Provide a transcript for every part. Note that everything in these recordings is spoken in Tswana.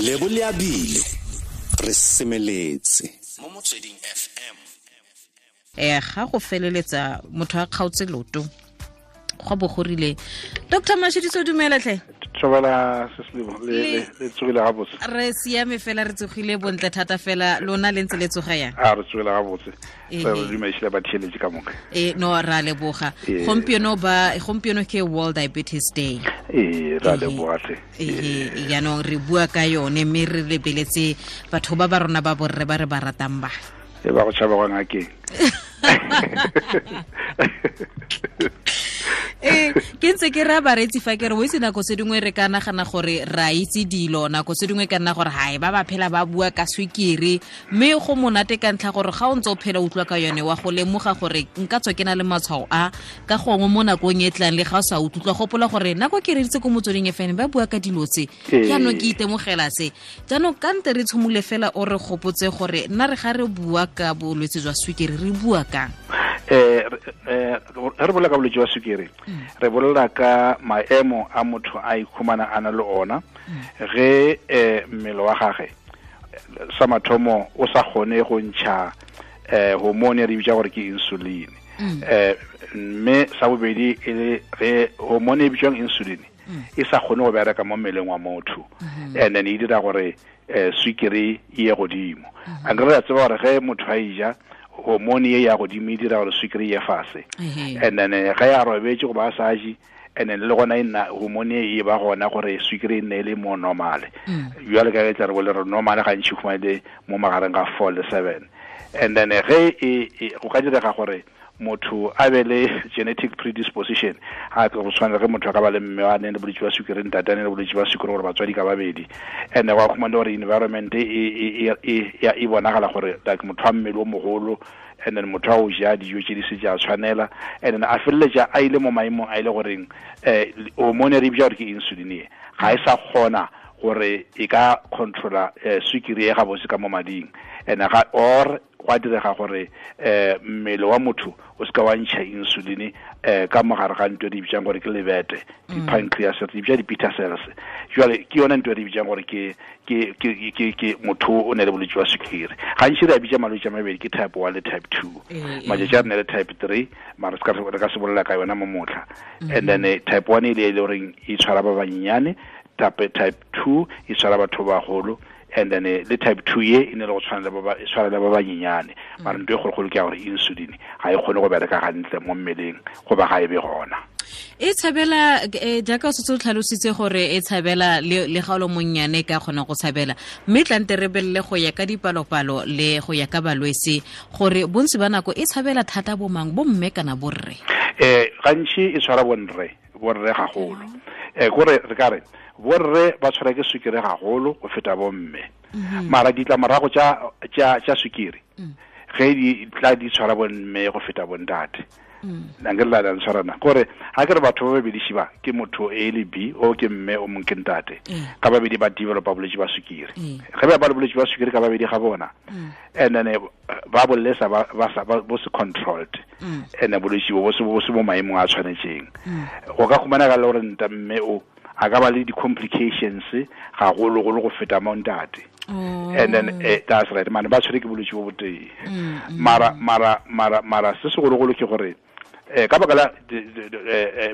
Lebo le abile re semeletse mo Motsweding FM. Ga go feleletsa motho a kgaotse loto go bo go rile. Dr. Mashediso, dumela tlhe. Tshobela Seslebo le tsogile ga botse. Re siame fela, re tsogile bontle thata fela, lona le ntse le tsoga yang? A re tsogile ga botse. Re dumedisile ba theeletše ka moka. No, ra leboga. Gompieno ke World Diabetes Day. Ra leboga tlhe. Jaanong re bua ka yone mme re lebeletse batho ba ba rona ba borre ba re ba ratang ba. Ba go tšhaba go ngakeng. Ke ntse ke ra bareetsi fa ke re o itse nako tse dingwe re ka nagana gore ra itse dilo, nako tse dingwe ka nna gore hae ba ba phela ba bua ka swikiri, mme go monate ka ntlha gore ga o ntse o phela utlwa ka yone wa go lemoga gore nka tswa ke na le matshwao a ka gongwe mo nakong e tlang le ga o sa utlwa gopola gore nako ke reditse ko Motsweding FM ba bua ka dilo tse, jaanong ke itemogela se. Jaanong ka nte re tshimole fela o re gopotse gore nna re ga re bua ka bolwetse jwa swikiri re bua kang? Re bolela ka bolwetse jwa sukiri, re bolela ka maemo a motho a ikhumana a na le ona ge mmele wa gagwe sa mathomo o sa kgone go ntšha hormone re bitsa gore ke insulin, mme sa bobedi e le ge hormone e bitswang insulin e sa kgone go bereka mo mmeleng wa motho, and then e dira gore sukiri e ye godimo. A nkere re tseba gore ge motho a eja hormone ye ya godimo e dira gore sukiri ye fase, and then ge ya robetse goba a sa je, and then le gona e nna hormone e ba gona gore sukiri e nne e le mo normale. Jwale ka ge tla re bole re normale gantši khumane mo magareng ga 4 le 7, and then ge go ka direga gore motho a be le genetic predisposition, ga go tshwana ge motho a ka ba le mme a neng le bolwetse ba sukiri, ntate a neng le bolwetse ba sukiri, gore batswadi ka babedi, and wa khumana gore environment e bonagala gore like motho a mmele o mogolo, and then motho a o ja dijo tse di se ja tshwanela, and then a feleletša a ile mo maemong a ile goreng hormone re bitsa gore ke insulin e ga e sa kgona gore e ka controla sukiri e gabotse ka mo mading, and ga or gwa direga gore mmele wa motho o se ka wa ntšha insulin ka mogare ga ntho e re bitsang gore ke lebete, di-pancreas, re bitsa di-beta cells. Jwale ke yone ntho e re bitsang gore ke motho o ne le bolwetse jwa sukiri. Gantši re a bitsa malwetse a mabedi, ke type 1 le type 2. Matšatši a re ne le type 3, mara re ka se bolela ka yona mo motlha. And then type 1 e le goreng e tshwara ba banyenyane, type 2 e tshwara batho ba bagolo, and then le type 2 ye e ne le go tshwana le ba tshwana le ba banyenyane. Mara ntho e kgologolo ke ya gore insulin ga e kgone go bereka gantle mo mmeleng goba ga e be gona. E tshabela jaaka o setse o tlhalositse gore e tshabela le ga o le monnyane ka kgona go tshabela, mme tlante re belele go ya ka dipalopalo le go ya ka balwetse gore bontsi ba nako e tshabela thata bo mang, bo mme kana borre? Gantši e tshwara borre gagolo. Kore re ka re borre ba tshwara ke sukiri gagolo go feta bomme. Mara ditlamorago tša sukiri ge di tla di tshwara bomme go feta bontate. Nka re la tshwarana gore ga ke re batho ba babedi šiba ke motho A le B, o ke mme o mongwe ke ntate, ka babedi ba developa bolwetse ba sukiri. Ge ba le bolwetse ba sukiri ka babedi ga bona, and then ba bolesa ba bo se controlled, and bolwetse bo se mo maemong a tshwanetseng. Go ka khumanega le gore nta mme o a ka ba le di-complications gagologolo go feta mo ntate. And then that's right, man, ba tshwere ke bolwetse bo botee. Mara se segologolo ke gore ka baka la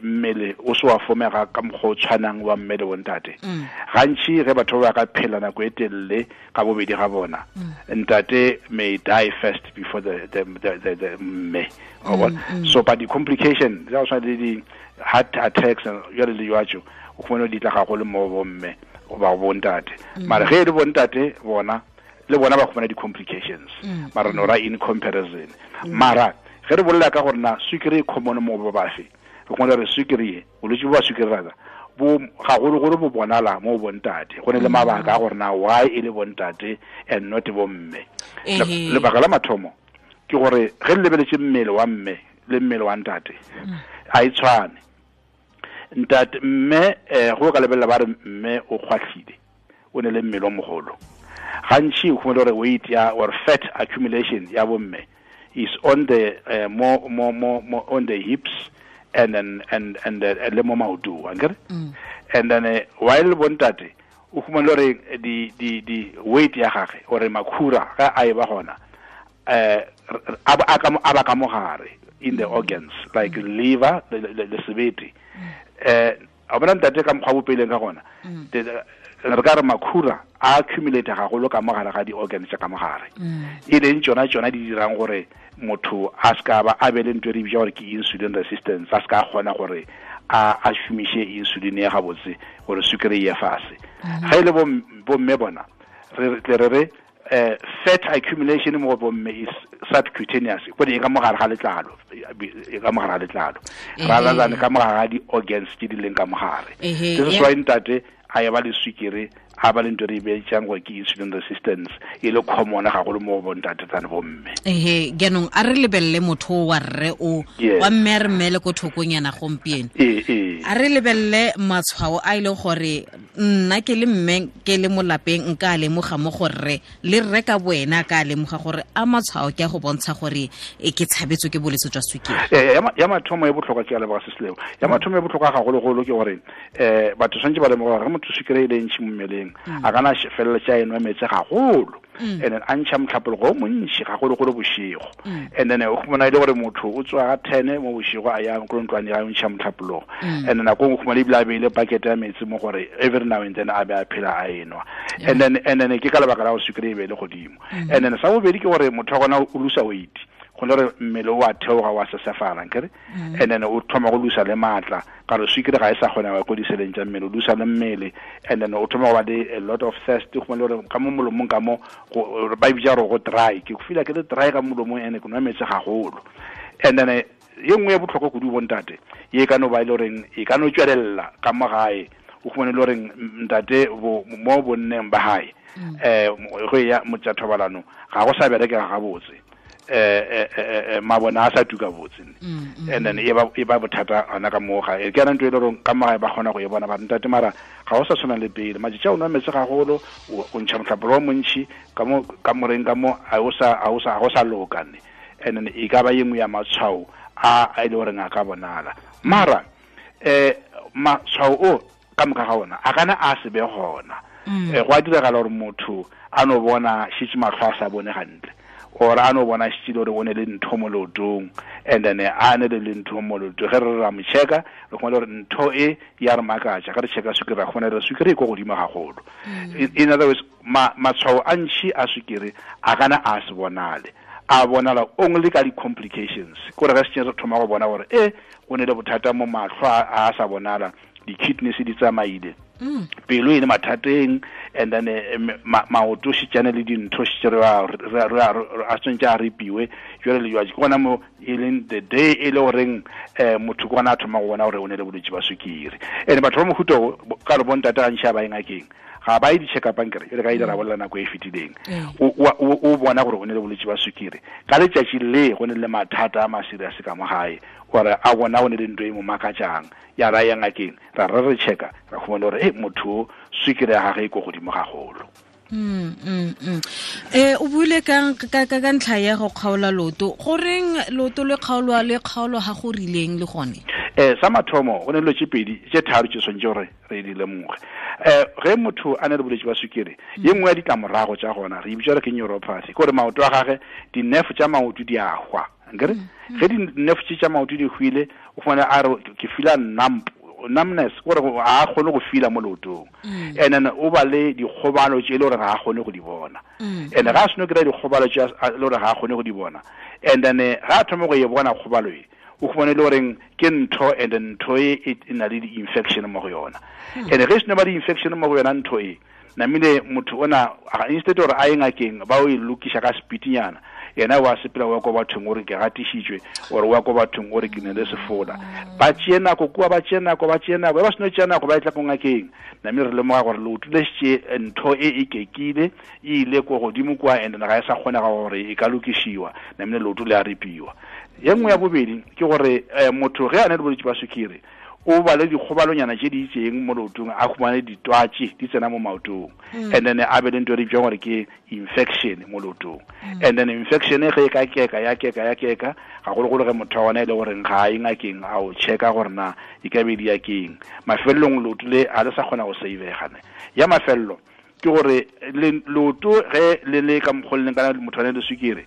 mmele o se wa fomega ka mokgwa o tshwanang wa mmele bo ntate. Gantši ge batho ba ka phela nako e telele ka bobedi ga bona, ntate may die first before the mme. So but the complication tsa go tshwana le di heart attacks jwale le jwatso, o khumana di tla gagolo mo bomme goba bontate. Mara ge e le bontate bona le bona ba khumana di-complications, mara no ra in comparison. Mara ge re bolela ka gore na sukiri e common mo ba bafe, re khumana re sukiri e bolwetse bo ba sukiri rata bo gagologolo bo bonala mo bontate. Go ne le mabaka a gore na why e le bontate and not bomme. Lebaka la mathomo ke gore ge le lebeletse mmele wa mme le mmele wa ntate a e tshwane. Ntate mme go ka lebelela ba re mme o kgwatlhile, o ne le mmele o mogolo. Gantši o khumana gore weight ya or fat accumulation ya bomme is on the more on the hips and then and le mo maotong, akere? And then while bontate o khumana gore di weight ya gagwe gore makhura ga a e ba gona a ba ka mogare in the organs like liver le sebete. A bona ntate ka mokgwa bopeleng ka gona re ka re makhura a accumulate gagolo ka mogare ga di-organs tsa ka mogare, e leng tsona di dirang gore motho a ska ba a be le ntho e re bitsa gore ke insulin resistance, a ska kgona gore a šomiše insulin ya gabotse gore sukiri ye fase. Ga e le bomme bona re tle re fat accumulation mo bomme is subcutaneous, gore e ka mogare ga letlalo, e ka mogare ga letlalo rather than ka mogare ga di-organs tse di leng ka mogare. This is why ntate a ya ba le sukiri, a ba le ntho re bitsang gore ke insulin resistance, e le common gagolo mo go bontate than bomme. Ehe, jaanong a re lebelele motho wa rre o wa mme a re mmele ko thokonyana gompieno. A re lebelele matshwao a e leng gore nna ke le mme ke le mo lapeng nka a lemoga mo go rre, le rre ka boena ka a lemoga gore a matshwao ke a go bontsha gore e ke tshabetswe ke bolwetse jwa sukiri. Ya mathomo e botlhokwa ke a leboga Sesileo. Ya mathomo e botlhokwa gagologolo ke gore batho tshwanetse ba lemoga gore ge motho sukiri e le ntšhi mo mmeleng a kana feleletsa a enwa metsi gagolo, and then a ntšha motlhapologo o montši gagologolo bošego, and then o khumana e le gore motho o tswa ga 10 mo bošego a ya ko ntlwane ya ntšha motlhapologo, and then nako nngwe khumana ebile a beile bucket ya metsi mo gore every now and then a be a phela a enwa, and then ke ka lebaka la go sukiri e be le godimo. And then sa bobedi ke gore motho wa gona o losa weight, go le gore mmele o a theoga wa sesefala nkere, and then o thoma go losa le maatla ka re sukiri ga e sa kgona go diseleng tsa mmele, o losa le mmele, and then o thoma go ba le a lot of thirst, go le gore ka mo molomong ka mo ba bitsa gore go dry, ke feel ke le dry ka molomong ene ke nwa metsi gagolo. And then ye nngwe ya botlhokwa kudu bontate ye ka no ba ile goreng e ka no tswelela ka mo gae, o khumane le goreng ntate mo bonneng ba gae go ya motsa thobalano ga go sa berekega gabotse, mabona a sa tuka botse, and then e ba bothata ana ka mo gae. Ke ana ntho e le gore ka mo gae ba kgona go e bona ba ntate, mara ga o sa tshwana le pele, matšatši a o nwa metsi gagolo, o ntšha motlhapolo o montšhi ka mo ka moreng ka mo a o sa loka ne, and then e ka ba ye nngwe ya matshwao a e le goreng a ka bonala. Mara matshwao o ka moka ga ona a kana a se be gona. Go a diragala gore motho a no bona šitše matlho a sa bone gantle, or a no bona šitše gore o ne le ntho mo leotong, and then a ne le ntho mo leotong, ge re ra mo checka re khumana gore ntho e ya re makatša, ge re checka sukiri ra khumana re sukiri e ko godimo gagolo. In other words, matshwao a ntšhi a sukiri a kana a se bonale, a bonala only ka di-complications, kore ge se re thoma go bona gore o ne le bothata mo matlho a sa bonala, di-kidneys di tsamaile, pelo e le mathateng, and then maoto šitšane le dintho šitše a tshwanetse a ripiwe jwale le jwale. Ke gona mo e leng the day e le goreng motho ke gona a thoma go bona gore o ne le bolwetse ba sukiri. And batho ba mohuta ka re bontate gantši a ba ye ngakeng, ga ba ye di-check-up ankere e le ka ile ra bolela nako e fetileng, o bona gore o ne le bolwetse ba sukiri ka letšatši le go ne le mathata a maserious ka mo gae, gore a bona o ne le ntho e mo makatšang, ya ra ya ngakeng ra re checka ra khumana gore motho sukiri ya gagwe e ko godimo gagolo. O buile ka ntlha ya go kgaola loto, goreng loto le kgaolwa le kgaolo ga go rileng le gone? Sa mathomo go ne dilo tse pedi tse tharo tse tshwanetse gore re di lemoge. Ge motho a ne le bolwetse ba sukiri, ye nngwe ya ditlamorago tsa gona re e bitsa gore ke neuropathy, ke gore maoto a gagwe di-nerve tsa maoto di a hwa nkere. Ge di-nerve tse tsa maoto di hwile, o fumana a re ke feela numbness, gore a kgone go feel mo leotong, and then o ba le dikgobalo tse e le gore ga a kgone go di bona, and ga a seno kry-a dikgobalo tse e le gore ga a kgone go di bona, and then ga a thoma go e bona kgobalo e, o khumane le goreng ke ntho, and ntho e e na le di-infection mo go yona, and ge seno ba di-infection mo go yona ntho e namile motho ona instead gore a ye ngakeng ba o e lokiša ka speedinyana, yena wa sepela wa ko bathong gore ke gatišitšwe, ore wa ko bathong gore ke ne le sefola, ba tšee nako kua, ba tšee nako, ba seno tšea nako ba e tla ko ngakeng, namile re lemoga gore leoto le šetše ntho e e kekile e ile ko godimo kua, and ga e sa kgonega gore e ka lokišiwa, namile leoto le a ripiwa. Ye nngwe ya bobedi ke gore motho ge a ne le bolwetse ba sukiri O ba le dikgobalonyana tse di itseng mo leotong, a khumane ditwatsi di tsena mo maotong, and then a be le ntho e re bitsang gore ke infection mo leotong. And then infection e ge e ka keka ya keka ya keka, gagologolo ge motho wa gona e le goreng ga a ye ngakeng a o checka gore na e ka be di ya keng, mafelelong leoto le ga le sa kgona go savega ne. Ya mafelelo ke gore leoto ge le le ka mokgwa le leng kana motho a ne le sukiri,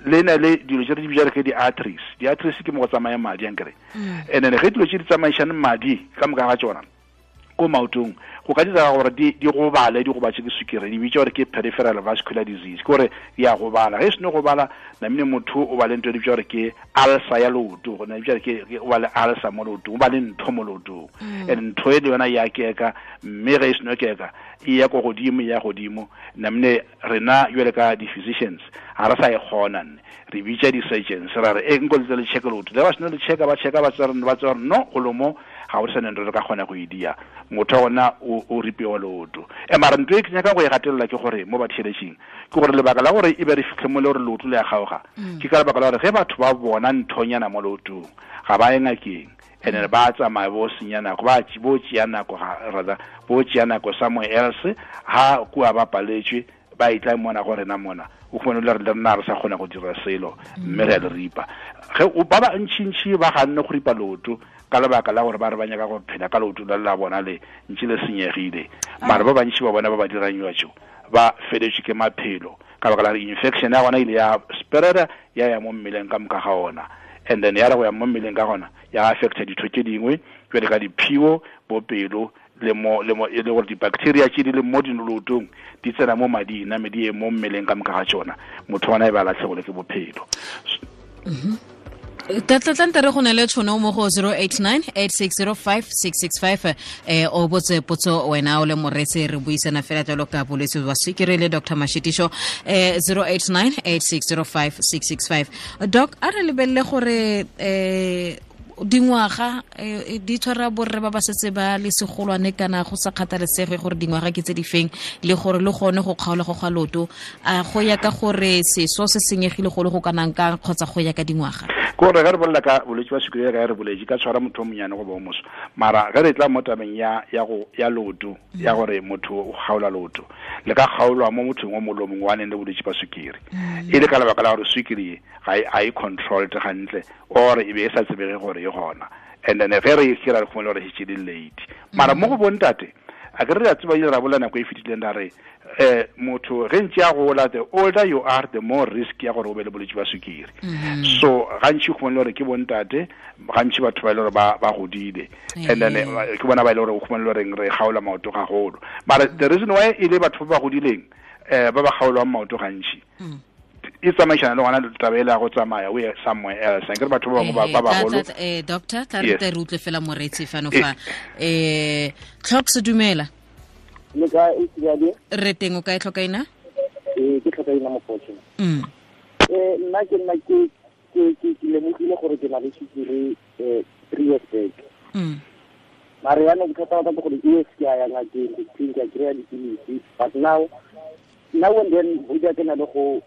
le na le dilo tse re di bitsang ke di-arteries. Di-arteries ke mo go tsamaya madi ankere. And then ge dilo tse di tsamaišane madi ka moka ga tsona ko maotong, go ka dira gore di gobale, di gobatse ke sukiri, di bitsa gore ke peripheral vascular disease, ke gore di a gobala. Ge e seno gobala, namine motho o ba le ntho e di bitsa gore ke ulcer ya leoto, go na bitsa gore ke o ba le ulcer mo leotong, o ba le ntho mo leotong. And ntho e le yona ya keka, mme ge e seno keka e ya ko godimo, e ya godimo. Namine rena jwale ka di-physicians ga re sa e kgona nne, re bitsa di-surgeons ra re e nko le le check leoto, le ba seno le checka, ba checka, ba tsaya ba tsaya no go lomo ga o sa neng re ka kgona go e dia, motho wa gona o ripiwa leoto. E mara ntho e ke nyaka go e gatelela ke gore mo batheletšing ke gore lebaka la gore e be re fitlhe mo le gore leoto le ya kgaoga, ke ka lebaka la gore ge batho ba bona nthonyana mo leotong ga ba ye ngakeng, and then ba tsamaya bo senya nako, ba bo tšea nako, rather bo tšea nako somewhere else, ha kua ba paletswe ba itla mona go rena mona, o khone le re nna re sa kgona go dira selo, mme re a le ripa. Ge ba ba ntšintši ba ganne go ripa leoto ka lebaka la gore ba re ba nyaka go phela ka leoto la la bona le ntše le senyegile, mara ba bantši ba bona ba ba dirang jwa ba feletswe ke maphelo ka lebaka la infection ya gona ile ya spreada ya ya mo mmeleng ka moka ga ona, and then ya re go ya mo mmeleng ka gona ya affecta ditho tše dingwe jwale ka diphio, bopelo le mo le mo e le gore di-bacteria tše di leng mo dinolotong di tsena mo mading, name di ye mo mmeleng ka moka ga tšona, motho ona e ba latlhegole ke bophelo. Tlatlante re go ne le tšhono mo go 089 8605 665, o botse potso wena o le moreetsi, re buisana fela jalo ka bolwetse ba sukiri le Dr. Mashitisho, 089 8605 665. Doc, a re lebelele gore dingwaga di tshwara borre ba ba setse ba le segolwane kana go sa kgathalesege gore dingwaga ke tse di feng, le gore le gone go kgaola go ga loto a go ya ka gore seso se senyegile go le go kanang kang kgotsa go ya ka dingwaga. Ke gore ge re bolela ka bolwetse ba sukiri ka re boletse ka tshwara motho o monyane go ba o moso, mara ge re tla mo tabeng ya ya go ya loto, ya gore motho o kgaola loto, le ka kgaolwa mo mothong o mongwe le o mongwe wa neng le bolwetse ba sukiri, e le ka lebaka la gore sukiri ga e controlled gantle, or e be e sa tsebege gore e gona, and then ge re e kry-a re khumane gore e šetše le late. Mara mo go bontate a ke re a tseba ile ra bolela nako e fetileng ra re motho ge ntse a gola, the older you are the more risk ya gore o be le bolwetse ba sukiri. So gantši o khumane gore ke bontate, gantši batho ba e le gore ba godile, and then ke bona ba e le gore o khumane gore re kgaola maoto gagolo. Mara the reason why e le batho ba ba godileng ba ba kgaolwang maoto gantši e tsamaišana le gona taba e le ya go tsamaya o ye somewhere else, akere batho ba bangwe ba bagolo. Doctor, tla re re utlwe fela moreetsi fano fa. Tlhoks, dumela. Le kae, Tsibadi? Re teng, o kae Tlhokaina? Ke Tlhokaina Mokgotshe. Nna ke nna ke ke ke lemogile gore ke na le sukiri 3 years back. Mara yaanong bothata ba ka ke gore yes ke a ya ngakeng, ke a kry-a dipilisi, but now and then bo ke na le go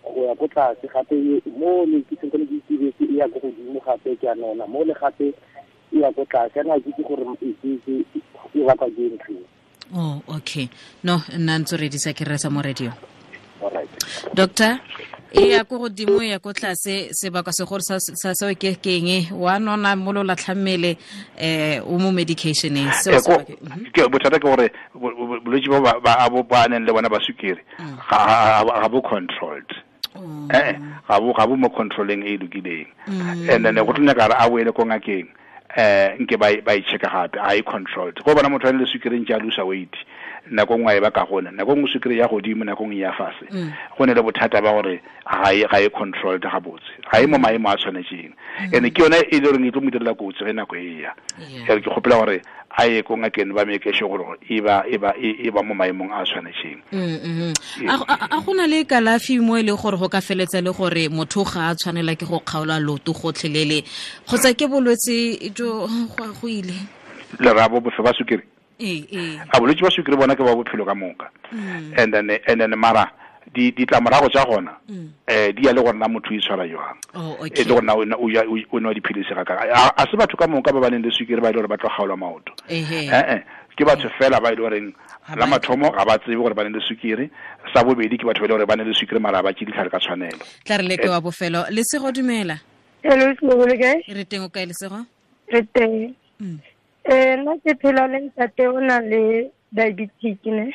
ya ko tlase gape, mo ne ke sentse ke itibetse e ya ko godimo gape ke a nona, mo le gape e ya ko tlase, ana ke itse gore e bakwa ke ntho. Oh, okay. No, nna ntse re disa ke resa mo radio. All right. Doctor, e ya ko godimo e ya ko tlase, sebaka se gore sa seo ke keng, wa nona mo lo latlha mmele, o mo medicationeng seo ke bothata ke gore bolwetse ba ba ba neng le bona ba sukiri ga bo controlled. Ga bo mo controlling e lokileng. And then go tlo nyaka a boele ko ngakeng, nke ba e checka gape, a e controlled. Go bona motho a le sukiri ntse a lose weight, nako nngwe e ba ka gona, nako nngwe sukiri ya godimo, nako nngwe ya fase. Go ne le bothata ba gore ga e controlled gabotse, ga e mo maemo a tshwanetseng. And ke yone e le goreng e tlo mo direla kotsi ge nako e ya. Ke kgopela gore a ye ko ngakeng ba make sure gore e ba mo maemong a tshwanetseng. A go na le kalafi mo e le gore go ka feletsa le gore motho ga a tshwanela ke go kgaola loto gotlhelele, kgotsa ke bolwetse jo go ile lerabo bofe ba sukiri? A bolwetse ba sukiri bona ke ba bophelo ka moka. And then mara Ditlamorago tša gona di ya le gore na motho o itshwara jwang, e le gore na o nwa dipilisi ga kae. A se batho ka moka ba ba neng le sukiri ba ile gore ba tlo kgaolwa maoto, ke batho fela ba ile goreng la mathomo ga ba tsebe gore ba ne le sukiri, sa bobedi ke batho ba ile gore ba ne le sukiri mara ba tše ditlhare ka tshwanelo. Tla re leke wa bofelo. Lesego, dumela. Hello, le kae? Re teng, o kae Lesego? Re teng. Nna ke phela le ntate o na le diabetic ne.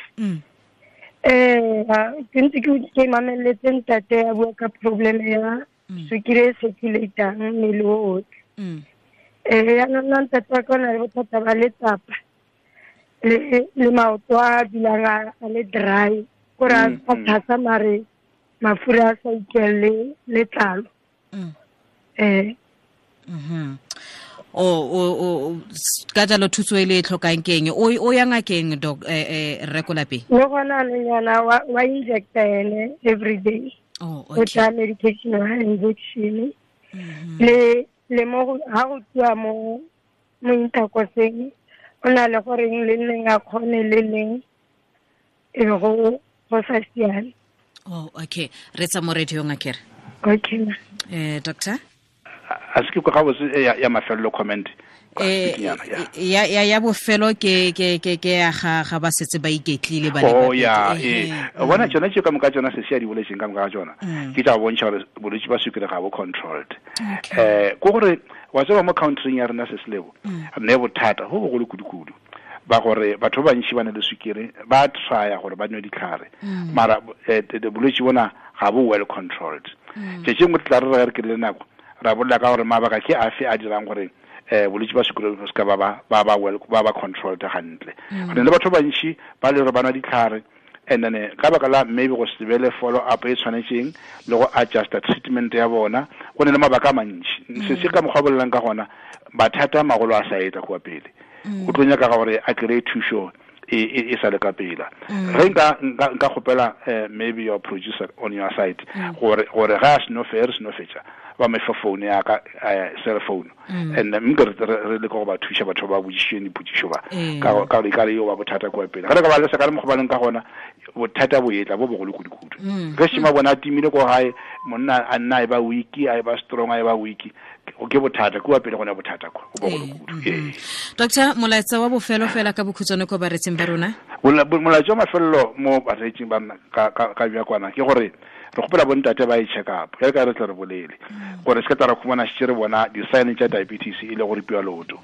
Ke ntse ke mameletse ntate a bua ka problem ya sukiri e circulatang mmele o otlhe. Yaanong nna ntate wa ka o na le bothata ba letsapa le maoto a dulang a le dry, kore a thasa mare mafura a sa utlwelele letlalo. O ka jalo thuso e le e tlhokang keng? O ya ngakeng doc rre ko lapeng? Le gona nyana wa injecta ene every day. Oh, okay. O tsaya medication wa injection. Le mo ha go tswa mo intercoseng o na le goreng le leng a kgone le leng e go sa siame. Oh, okay. Re tsa mo radio ngakere. Okay. Doctor? A se ke kwa ga ya mafelelo comment. Ya bofelo ke ya ga ba setse ba iketlile ba le. Oh ya, bona tsona tse ka moka tsona se se ya di boletseng ka moka ga tsona. Ke tsa bontsha gore bolwetse ba sukiri ga bo controlled. Ko gore wa tseba mo country ya rena se selebo ne bothata go bogolo kudu-kudu ba gore batho ba bantši ba ne le sukiri ba trya gore ba nwe ditlhare mara bolwetse bona ga bo well controlled. Tse tse nngwe tla re re ke le nako ra bolela ka gore mabaka ke afe a dirang gore bolwetse ba sukiri bo se ka ba well ba controlled hantle. Re le batho ba bantši ba le gore ba nwa ditlhare and then ka baka la maybe go se be le follow up e tshwanetseng le go adjusta treatment ya bona, go ne le mabaka a mantši. Se se ka mokgwa bolelang ka gona mathata a magolo a sa etla kwa pele. O tlo nyaka gore a kry-e thušo e sa le ka pela. Ge nka kgopela maybe your producer on your side gore ga a seno re seno fetša ba me fa phone ya ka cell phone and nka re le go ba thuša batho ba botšišeng dipotšišo ba ka gore ka re yo ba bothata kwa pele. Ga re ka ba le sa ka re mokgobaleng ka gona bothata bo etla bo bogolo kudu-kudu. Ge šema bona a timile ko gae monna a nna e ba weak, a e ba strong, a e ba weak, ke bothata kwa pele gona bothata kwa go bogolo kudu. Doctor, molaetsa wa bofelo fela ka bokhutshwane ko baretsing ba rona? Molaetsa wa mafelelo mo baretsing ba rona ka bja kwana ke gore re kgopela bontate ba e check up ge ka re tle re bolele gore se ka tla re khumana šetše re bona di-sign tša diabetes e le go ripiwa leoto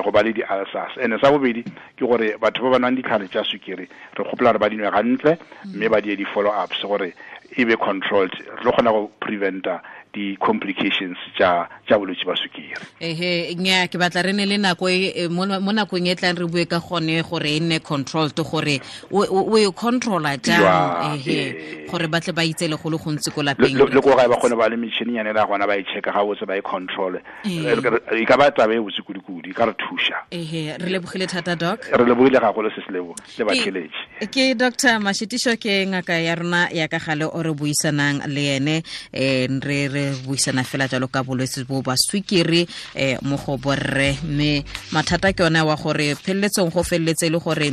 go ba le di-ulcers. And sa bobedi ke gore batho ba ba nwang ditlhare tša sukiri re kgopela gore ba di nwe gantle mme ba die di-follow ups gore e be controlled, re tlo kgona go preventa di-complications tša bolwetse ba sukiri. Ehe, nya ke batla re ne le nako mo nakong e tlang re bue ka gone gore e nne controlled, gore o e controlla jang, ehe, gore ba tle ba itse le go le gontsi ko lapeng. Le ko gae ba kgone ba le metšhininyane la gona ba e checka ga botse ba e control. E ka ba taba e botse kudu-kudu, e ka re thuša. Ehe, re lebogile thata doc. Re lebogile gagolo se se lebo le batheletši. Ke Dr. Mashitiso, ke ngaka ya rona ya ka gale o re buisanang le ene, re buisana fela jalo ka bolwetse bo ba sukiri mo go borre, mme mathata ke yone wa gore pheleletsong go feleletse le gore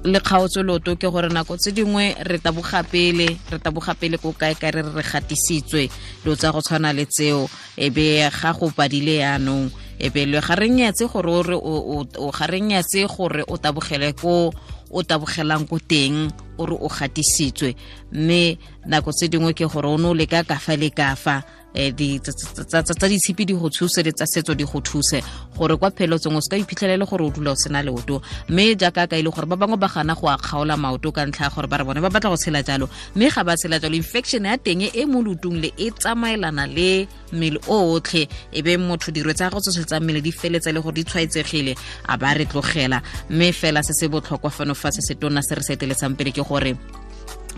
le kgaotso loto ke gore nako tse dingwe re taboga pele ko kae ka re re gatisitswe dilo tsa go tshwana le tseo, e be ga go padile yaanong e be le ga re nyatse gore o ga re nyatse gore o tabogele ko o tabogelang ko teng o re o gatisitswe, mme nako tse dingwe ke gore o ne o leka ka fa le ka fa tsa ditshipi di go thuse le tsa setso di go thuse gore kwa pheletsong o se ka iphitlhelele gore o dula o sena leoto. Mme jaaka ka ile gore ba bangwe ba gana go a kgaola maoto ka ntlha ya gore ba re bone ba batla go tshela jalo, mme ga ba tshela jalo infection ya teng e mo leotong le e tsamaelana le mmele o otlhe, e be motho dirwe tsa go tsotlhe tsa mmele di feletse le gore di tshwaetsegile a ba re tlogela. Mme fela se se botlhokwa fano fa se se tona se re se eteletsang pele ke gore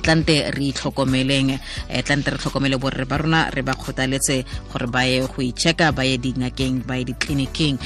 tlante re itlhokomeleng, tlante re tlhokomele borre ba rona, re ba kgothaletse gore ba ye go itšheka, ba ye dingakeng, ba ye ditleliniking.